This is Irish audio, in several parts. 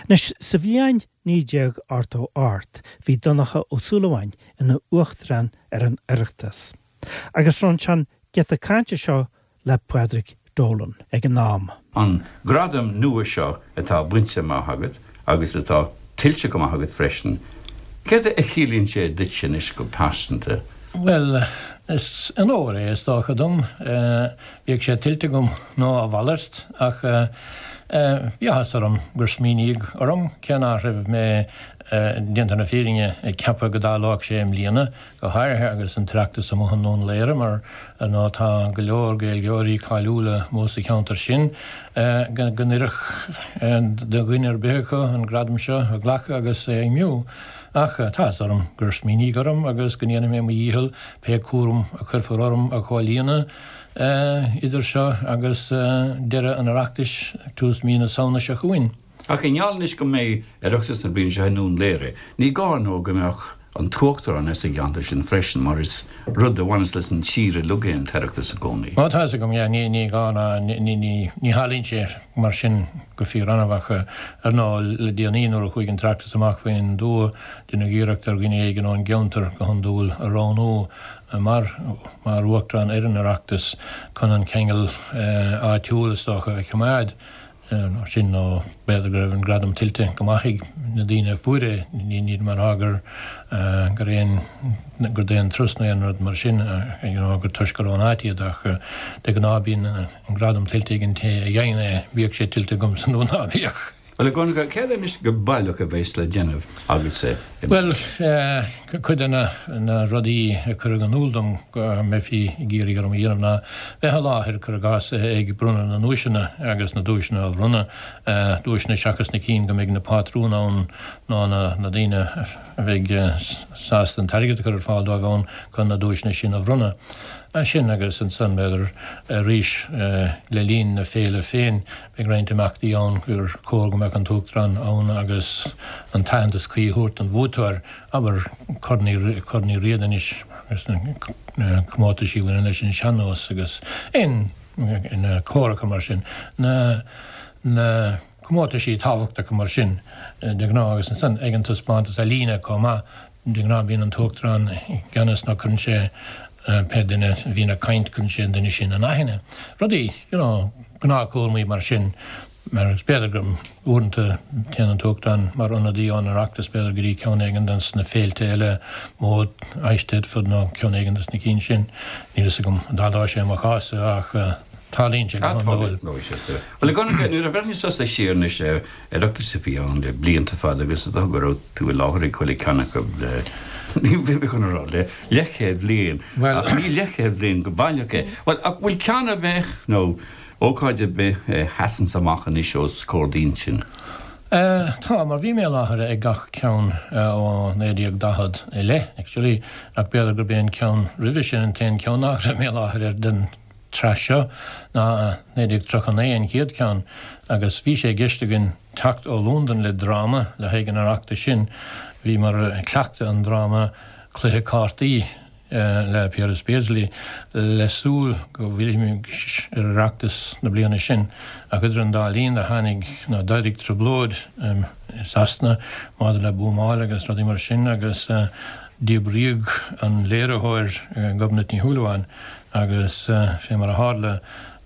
Anois, sa bhliain 1988 bhí Donncha Ó Súilleabháin ina Uachtarán ar an Oireachtas agus roinn sé an giota cainte seo le Pádraig Dolan ag an am. An gradam nua seo atá bainte amach agat agus atá tuillte go maith agat freisin, céard a chiallaíonn sé duitse anois go pearsanta? Bhuel, is onóir é is dócha dom. Bíodh sé tuillte agam nó a mhalairt, ach bhí áthas orm gur smaoiníodh orm, cé nach raibh mé, déanta na fírinne, ag ceapadh go dtarlódh sé i mbliana, go háirithe agus an tOireachtas amuigh i nDún Laoghaire, mar ar ndóigh tá go leor Gaeilgeoirí cáiliúla amuigh sa cheantar sin, go n-oirfeadh do dhuine ar bith acu an gradam seo a ghlacadh agus a fheidhmiú. Ach tá áthas orm gur smaoiníodh orm agus go ndéanfaidh mé mo dhícheall pé cúram a chuirfear orm a chomhlíonadh idir seo agus deireadh an Oireachtais, tús mí na Samhna seo chugainn. Ach i ngeall anois go mbeidh Oireachtas na bliana seo i nDún Laoghaire, ní gá ar ndóigh go mbeadh an tUachtarán as an gceantar sin freisin, mar is rud a bhaineas leis an tír uilig é an tOireachtas i gcónaí. Ó, tá fhios agam, yeah, ní gá ná, ní tharlaíonn sé mar sin go fíor-annamh ach ar ndóigh le déanaí nuair a chuaigh an tOireachtas amach faoin dtuath, deineadh iarracht ar dhuine éigin ón gceantar go hiondúil a roghnú mar mar Uachtarán ar an Oireachtas chun an ceangal áitiúil, is dócha, a choimeád. Sin nó b'fhéidir go raibh an gradam tuillte go maith ag na daoine a fuair é, níl mé ag rá gur gur aon gur d'aon turas nó aon rud mar sin, you know, gur toisc gur ón áit iad ach de ghnáth bíonn an gradam tuillte ag an té a fhaigheann é, bíodh sé tuillte agamsa nó ná bíodh. Bhuel, a Dhonncha, céard anois go baileach a bheas le déanamh agatsa i Bhuel, cuid de na rudaí a cuireadh in iúl dom go mbeifí ag iarraidh orm a dhéanamh ná bheith i láthair, cuir i gcás, ag bronnadh na nduaiseanna agus na duaiseanna a bhronnadh, duaiseanna seachas na cinn go mbeidh na pátrúin ann nó na daoine a bheidh sásta an t-airgead a chur ar fáil dóibh ann chun na duaiseanna sin a bhronnadh. Sin agus ansan, b'fhéidir, arís le linn na féile féin, Beidh roinnt imeachtaí ann gur chóir go mbeadh an tUachtarán ann agus an t-aitheantas cuí a thabhairt don bhuaiteoir, abair, Corn Uí Corn Uí Riada anois agus na comórtaisí a bhaineann leis an sean-nós agus aon na córacha mar sin, na na comórtaisí tábhachtacha mar sin de ghnáth agus ansan ag an taispeántas ealaíne chomh maith. De ghnáth bíonn an tUachtarán i gceannas nó cuireann sé pé duine a bhíonn ag caint, cuireann sé an duine sin in aithne. Rudaí, you know, gnáthchúramaí mar sin, mar is b'fhéidir go uaireanta téann an tUachtarán mar ionadaí ón Oireachtas b'fhéidir go dtí ceann éigin de na féilte eile, mór, Eisteddfod nó ceann éigin de na cinn sin. Níl fhios agam an dtarlóidh sé i mo chás-sa ach tarlaíonn sé go hiondúil. Bhuel, a Dhonncha, nuair a bhreathnaíos tusa siar anois ar Oireachtais a bhí ann le blianta fada agus is dócha go raibh tú i láthair ag chuile cheann acu le, ní bheidh mé chun a rá le leathchéad bliain, ach ní leathchéad bliain go baileach é. Bhuel, ach bhfuil ceann ar bith nó ócáid ar bith a sheasanns amach anois os comhair d'intinn? Tá, mar bhí mé i láthair ag gach ceann ó 1940 i leith, actually, ach b'fhéidir gurb é an ceann roimhe sin an t-aon cheann nach raibh mé i láthair air den tsraith seo ná 1939 an chéad cheann agus bhí sé i gceist againn teacht ó Londain le dráma le haghaidh an Oireachtais sin. Bhíomar ag cleachtadh an dráma Cluiche Cártaí le Piaras Beasley le súil go bhfillfimis ar Oireachtas na bliana sin ach idir an dá linn do tháinig nó d'éirigh trioblóid i Sasana maidir le buamáil agus rudaí mar sin agus díbríodh an léiritheoir Gobnait Ní Shúilleabháin Agus fé mar a tharla,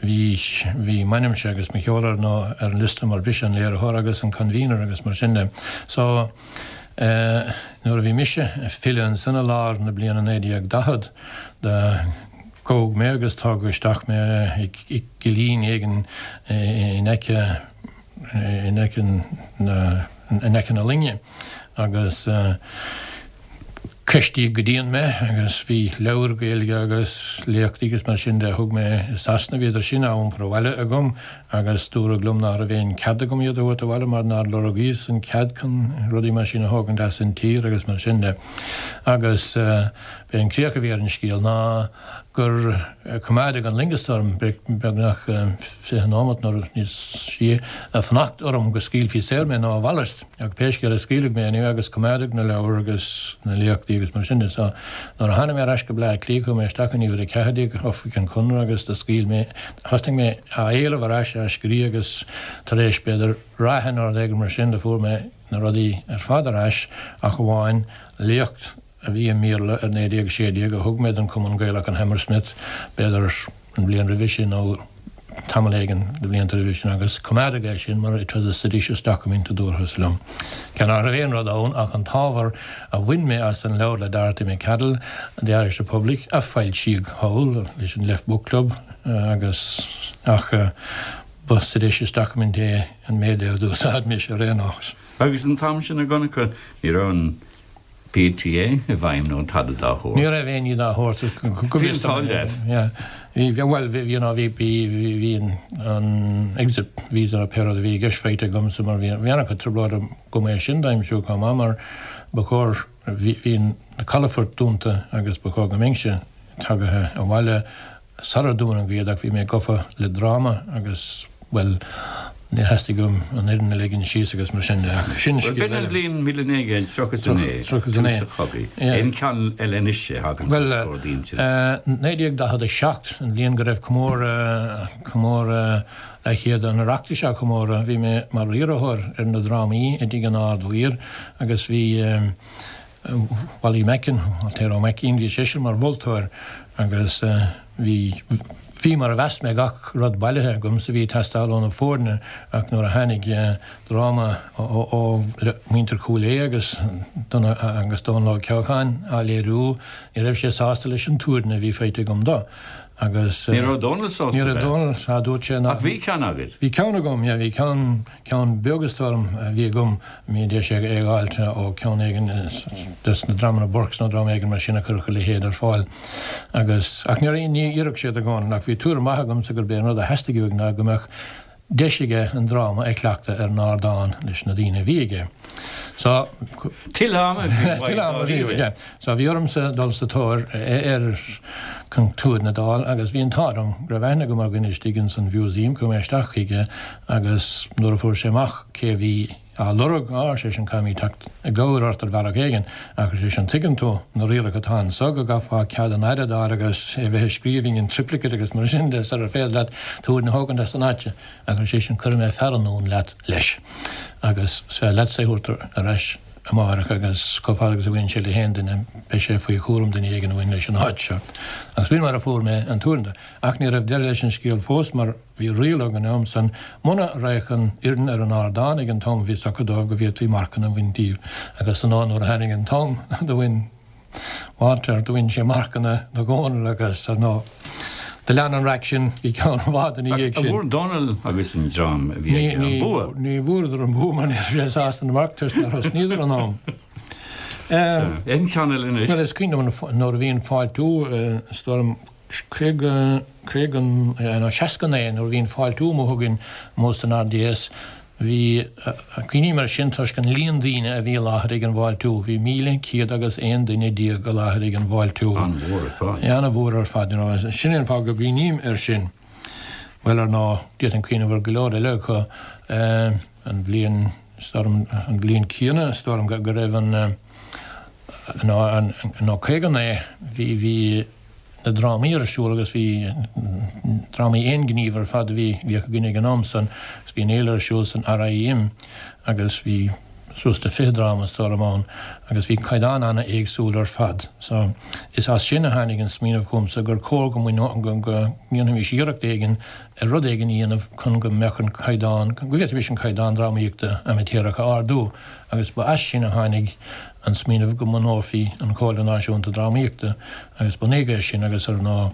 bhí, bhí m'ainmse agus mo sheoladh ar ndóigh ar an liosta mar b'ise an léiritheoir agus an convener agus mar sin de. So, eh, nuair a bhí mise ag filleadh ansan i lár na bliana 1940, do gabhadh mé agus tógadh isteach mé i gcillín éigin in aice, in aice na, in aice na loinge agus, eh, Ceistíodh go dian mé agus bhí leabhair Ghaeilge agus léachtaí agus mar sin de a thug mé i Sasana, bhíodar sin á iompar abhaile agam agus dúradh liom ná raibh aon cead agam iad a thabhairt abhaile mar nár lorgaíos an cead chun rudaí mar sin a thógaint as an tír agus mar sin de. Agus b'é an críoch a bhí ar an scéal ná. gur coimeádadh an loingeas orm beagnach 20 nóimeat nó níos sia ag fanacht orm go scaoilfí saor mé nó a mhalairt. Ach pé scéal é scaoileadh mé anyway agus coimeádadh na leabhair agus na léachtaí agus mar sin de. So nuair a tháinig mé ar ais go Bleá Cliath chuaigh mé isteach in uimhir 14 Oifig an Chonradh agus do scaoil mé, thosnaigh mé á éileamh ar ais, á scríobh agus tar éis b'fhéidir ráithe nó rud éigin mar sin do fuair mé na rudaí ar fad ar ais ach amháin léacht a bhí i mBéarla ar 1916 a thug mé don Chumann Gaelach in Hammersmith b'fhéidir an bhliain roimhe sin nó tamall éigin de bhlianta roimhe sin agus coimeádadh é sin mar it was a seditious document a dúrthas liom. Cé nach raibh aon rud ann ach an t-ábhar a bhain mé as an leabhar le Dorothy Macadle, The Irish Republic, a foilsíodh thall leis an Left Book Club agus ach ba seditious document é an méid é a d'úsáid mise ar aon nós. Agus an t-am sin a Dhonncha ní raibh an PTA i bhfeidhm nó tada dá shórt. Ní raibh aon ní dá shórt. Bhí an t-ádh leat. Bhí, bhuel, bhí, you know, bhí, bhí, bhí an exit visa nó pé rud a bhí i gceist faighte agamsa mar bhí, bhí an-chuid trioblóid agam é sin d'aimsiú chomh maith mar ba chóir, bhí, bhí na calafoirt dúnta agus ba chóir go mbeinnse tagaithe abhaile Sular dúnadh iad ach bhí mé gafa le dráma agus, bhuel, níor theastaigh uaim an fhoireann a ligean síos agus mar sin de ach sin Bhuel, scéal b'in an eile. bhliain 1939, 39, tús an chogaidh. yeah. Aon cheann eile anois a thagann Bhuel, os comhair d'intinne? 1947, an bhliain go raibh comóradh, comóradh leathchéad an Oireachtais á chomóradh, bhí mé mar riarthóir ar na drámaí i dTigh an Ard-Mhaoir agus bhí, Wally Macken, Waltair Ó Maicín, bhí seisean mar mholtóir agus bhí, bhí mar a mheas mé gach rud bailithe agamsa a bhí ag teastáil ó na foirne ach nuair a tháinig dráma ó mhuintir Chúil Aodha agus agus Dónal Óg Ceocháin á léiriú ní raibh sé sásta leis an tuairne a bhí faighte agam dó agus Ní raibh Dónal sásta Ní raibh Dónal, sea, dúirt sé nach. Ach bhí ceann agat? Bhí ceann agam, yeah, bhí ceann. Ceann beag is dóigh liom a bhí agam, bhí deis é a dh'fháilt ó cheann éigin des na dreamanna Burkes nó dream éigin mar sin a chuirfeadh a leithéid ar fáil. Agus, ach ní, ní oirfeadh sé do Dhónal, ach bhí tuairim mhaith agamsa gurb é an rud a theastaigh uaidh ná go mbeadh deis aige an dráma a chleachtadh ar an ardán leis na daoine a bhí aige. So. Tuilleadh ama a bhí uaidh, Tuilleadh ama a bhí uaidh, yeah. So bhí ormsa dul sa tóir air chun tuairne a d'fháil agus bhí an t-ádh liom go raibh aithne agam ar dhuine istigh ins an Mhúsaem, chuaigh mé isteach chuige agus nuair a fuair sé amach cé a bhí á lorg, á, ar seisean, caithfimid teacht i gcabhair ort ar bhealach éigin, ach ar seisean, tuigeann tú na rialacha atá anso go gcaithfeá cead an Aire d'fháil agus é bheith i scríbhinn in triplicate agus mar sin de sarar féidir leat tuairne a thógaint as an áit, ach ar seisean, cuirfidh mé fear anonn leat leis agus is féidir leatsa é a thabhairt ar ais. amárach agus chomh fada agus a bhaineann sé le haon duine, beidh sé faoi chúram duine éigin a bhain leis an áit seo. Agus b'in mar a fuair mé an tuairne de. Ach ní raibh deireadh leis an scéal fós mar bhí riail ag an am san, muna raghadh an fhoireann ar an ardán ag an t-am a bhí socraithe dóibh go bhféadfaí marcanna a bhaint díobh. Agus ar ndóigh nuair a tháinig an t-am do bhain Walter, do bhain sé marcanna do Dhónal agus, ar ndóigh, do lean an raic sin go ceann i bhfad ina dhiaidh sin. An bhfuair Dónal agus an dream a bhí aige an bua? Ní bhfuaireadar an bua mar ní raibh sé sásta na marc toisc nár thosnaíodar in am. Aon cheann eile anois? Bhuel, is cuimhin liom nuair a bhí an fáiltiú, is dóigh liom, 50, 50, nó 69 nuair a bhí an fáiltiú amuigh againn amuigh san RDS, bhí, cuimhním air sin toisc an líon daoine a bhí i láthair ag an bhfáiltiú, bhí 1,100 agus 11 duine i láthair ag an bhfáiltiú. An-mhór ar fad. An-mhór ar fad, you know. Sin é an fáth go gcuimhním air sin. Bhuel, ar ndóigh, d'fhéadfainn cuimhneamh ar go leor eile acu. An bhliain, is dóigh liom, an bhliain chéanna, is dóigh liom go raibh an, nó, nó 59, bhí, bhí, na drámaí ar siúl agus bhí drámaí aonghnímh ar fad a bhí bhíodh againn ag an am san agus bhí an fhéile ar siúl san RIM agus bhí suas le 20 dráma is dóigh liom ann agus bhí caighdeán ana-éagsúil ar fad. So is as sin a tháinig an smaoineamh chugamsa gur chóir go go ndéanfaimis iarracht éigin ar rud éigin a dhéanamh chun go mbeadh an caighdeán, go bhféadfaimis an caighdeán drámaíochta amaitéarach a ardú agus ba as sin a tháinig an smaoineamh go mbunófaí an Chomhairle Náisiúnta Drámaíochta agus bunaíodh é sin agus ar ndóigh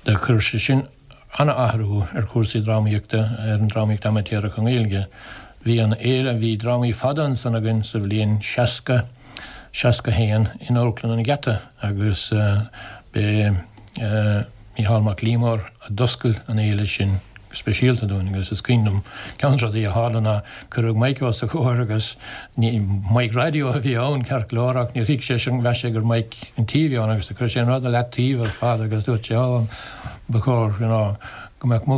do chuir sé sin ana-athrú ar chúrsaí drámaíochta, ar an drámaíocht amaitéarach i nGaeilge. Bhí an fhéile, bhí drámaí fada ansan againn sa bhliain 60, 61 in Amharclann an Gheata agus b'é Mícheál Mac Liammóir a d'oscail an fhéile sin. speisialta dúinn agus is cuimhin liom ceann de na rudaí a tharla ná cuireadh mic os a chomhair agus ní mic raidió a bhí ann ceart go leor ach níor thuig sé sin mheas sé gur mic an tí a bhí ann agus do chuir sé an rud i leataobh ar fad agus dúirt sé oh ba chóir you know go mbeadh mo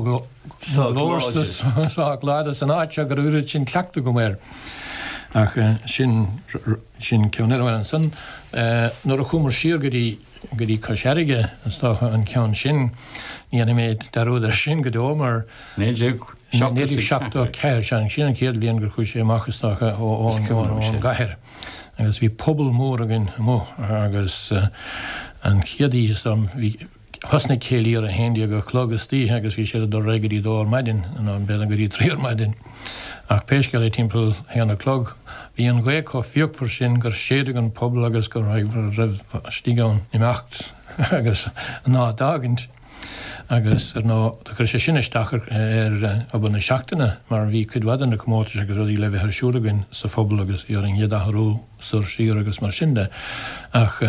ghlór sách láidir san áit seo go raibh oiread sin cleachtadh agam air. Ach sin sin ceann eile. Bhuel ansan nuair a chuamar siar go dtí go dtí Cois Fharraige is dócha an ceann sin, ní dhéanfaidh mé dearúd air sin go deo mar 1974, sea, sin an chéad bhliain gur chuaigh sé amach is dócha ón gcathair agus bhí puball mór againn amuigh agus an chéad oíche is dóigh liom bhí Thosnaigh céilí ar a haon déag a chlog istoíche agus bhí siad ag dul ar aghaidh go dtí dó ar maidin, nó b'fhéidir go dtí trí ar maidin. Ach pé scéal é timpeall haon a chlog bhí an ghaoth chomh fíochmhar sin gur séideadh an puball agus go raibh istigh ann imeacht agus an áit d'fhágaint. Agus ar ndóigh do chuir sé sin isteach ar obair na seachtaine mar bhí cuid mhaith de na comórtais agus rudaí le bheith ar siúl againn sa phuball agus bhí orainn iad a athrú. soir siar agus mar sin de. Ach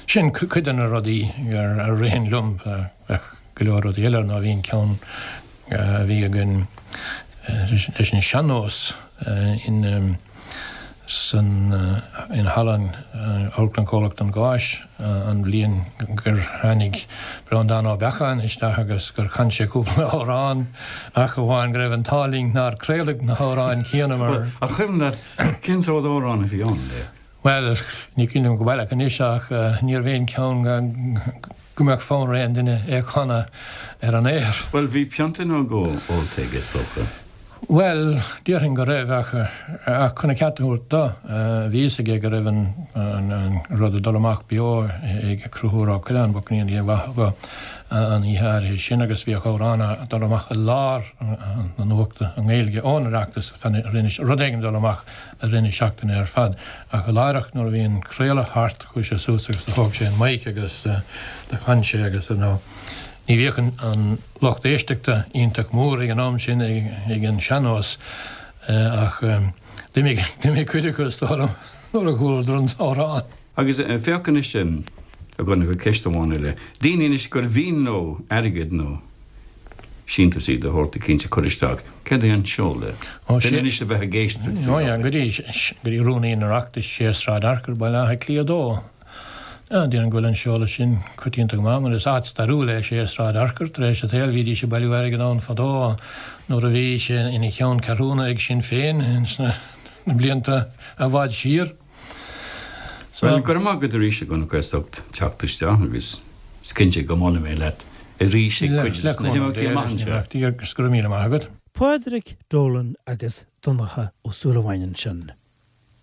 sin cuid de na rudaí a ritheann liom. Bheadh go leor rudaí eile, ar ndóigh bhí an ceann a bhí againn leis an sean-nós in san in halla Amharclann Chomhlacht an Gháis an bhliain gur tháinig Breandán Ó Beacháin isteach agus gur chan sé cúpla amhrán ach amháin go raibh an t-ádh linn nár craoladh na hamhráin chéanna mar An cuimhin leat Cén sórt amhrán a bhí ann, le? Bhuel, ní cuimhin liom go baileach anois ach níorbh aon ceann go mbeadh fonn ar aon duine é a chanadh ar an aer. Bhuel, bhí pionta nó dhó ólta aige, is dócha. Bhuel, déarfainn go raibh ach ach chun a cheart a thabhairt dó, bhí fhios aige go raibh an rud ag dul amach beo ag Conchúr Ó Coileáin, go ndéana Dia a mhaith dhó. an oíche áirithe sin agus bhíodh amhrán ag dul amach i lár na nuachta i nGaeilge ón Oireachtas, rud éigin ag dul amach i rith na seachtaine ar fad. Ach láithreach nuair a bhí an craoladh thart chuaigh sé suas agus do thóg sé an mic agus do chan sé agus ar ndóigh ní bhíodh an lucht éisteachta iontach mór ag an am sin ag an sean-nós ach d'imigh cuid acu is dóigh liom nuair a chualadar an t-amhrán. Agus féach anois, a Dhonncha, ceist amháin eile. Daoine anois gur mhian leo airgead nó síntiúsaí de shórt eicínt a chur isteach, céard é an seoladh? Duine anois a bheith ag éisteacht faoi láthair. Go dtí Rúnaí an Oireachtais, 6 Sráid Fhearchair, Baile Átha Cliath 2. Déarfainn go bhfuil an seoladh sin coitianta go maith mar is áit stairiúil é 6 Sráid Fhearchair. Tar éis an tsaoil bhídís ag bailiú airgid ann fadó nuair a bhí sé ina cheann ceathrúna ag Sinn Féin sna blianta i bhfad siar. Bhuel, go raibh maith agat arís a Dhonncha as ucht teacht isteach agus is cinnte go mbuailfidh mé leat arís ag cuid de na himeachtaí amach anseo. Agus go raibh míle maith agat. Pádraig Dolan agus Donncha Ó Súilleabháin ansin.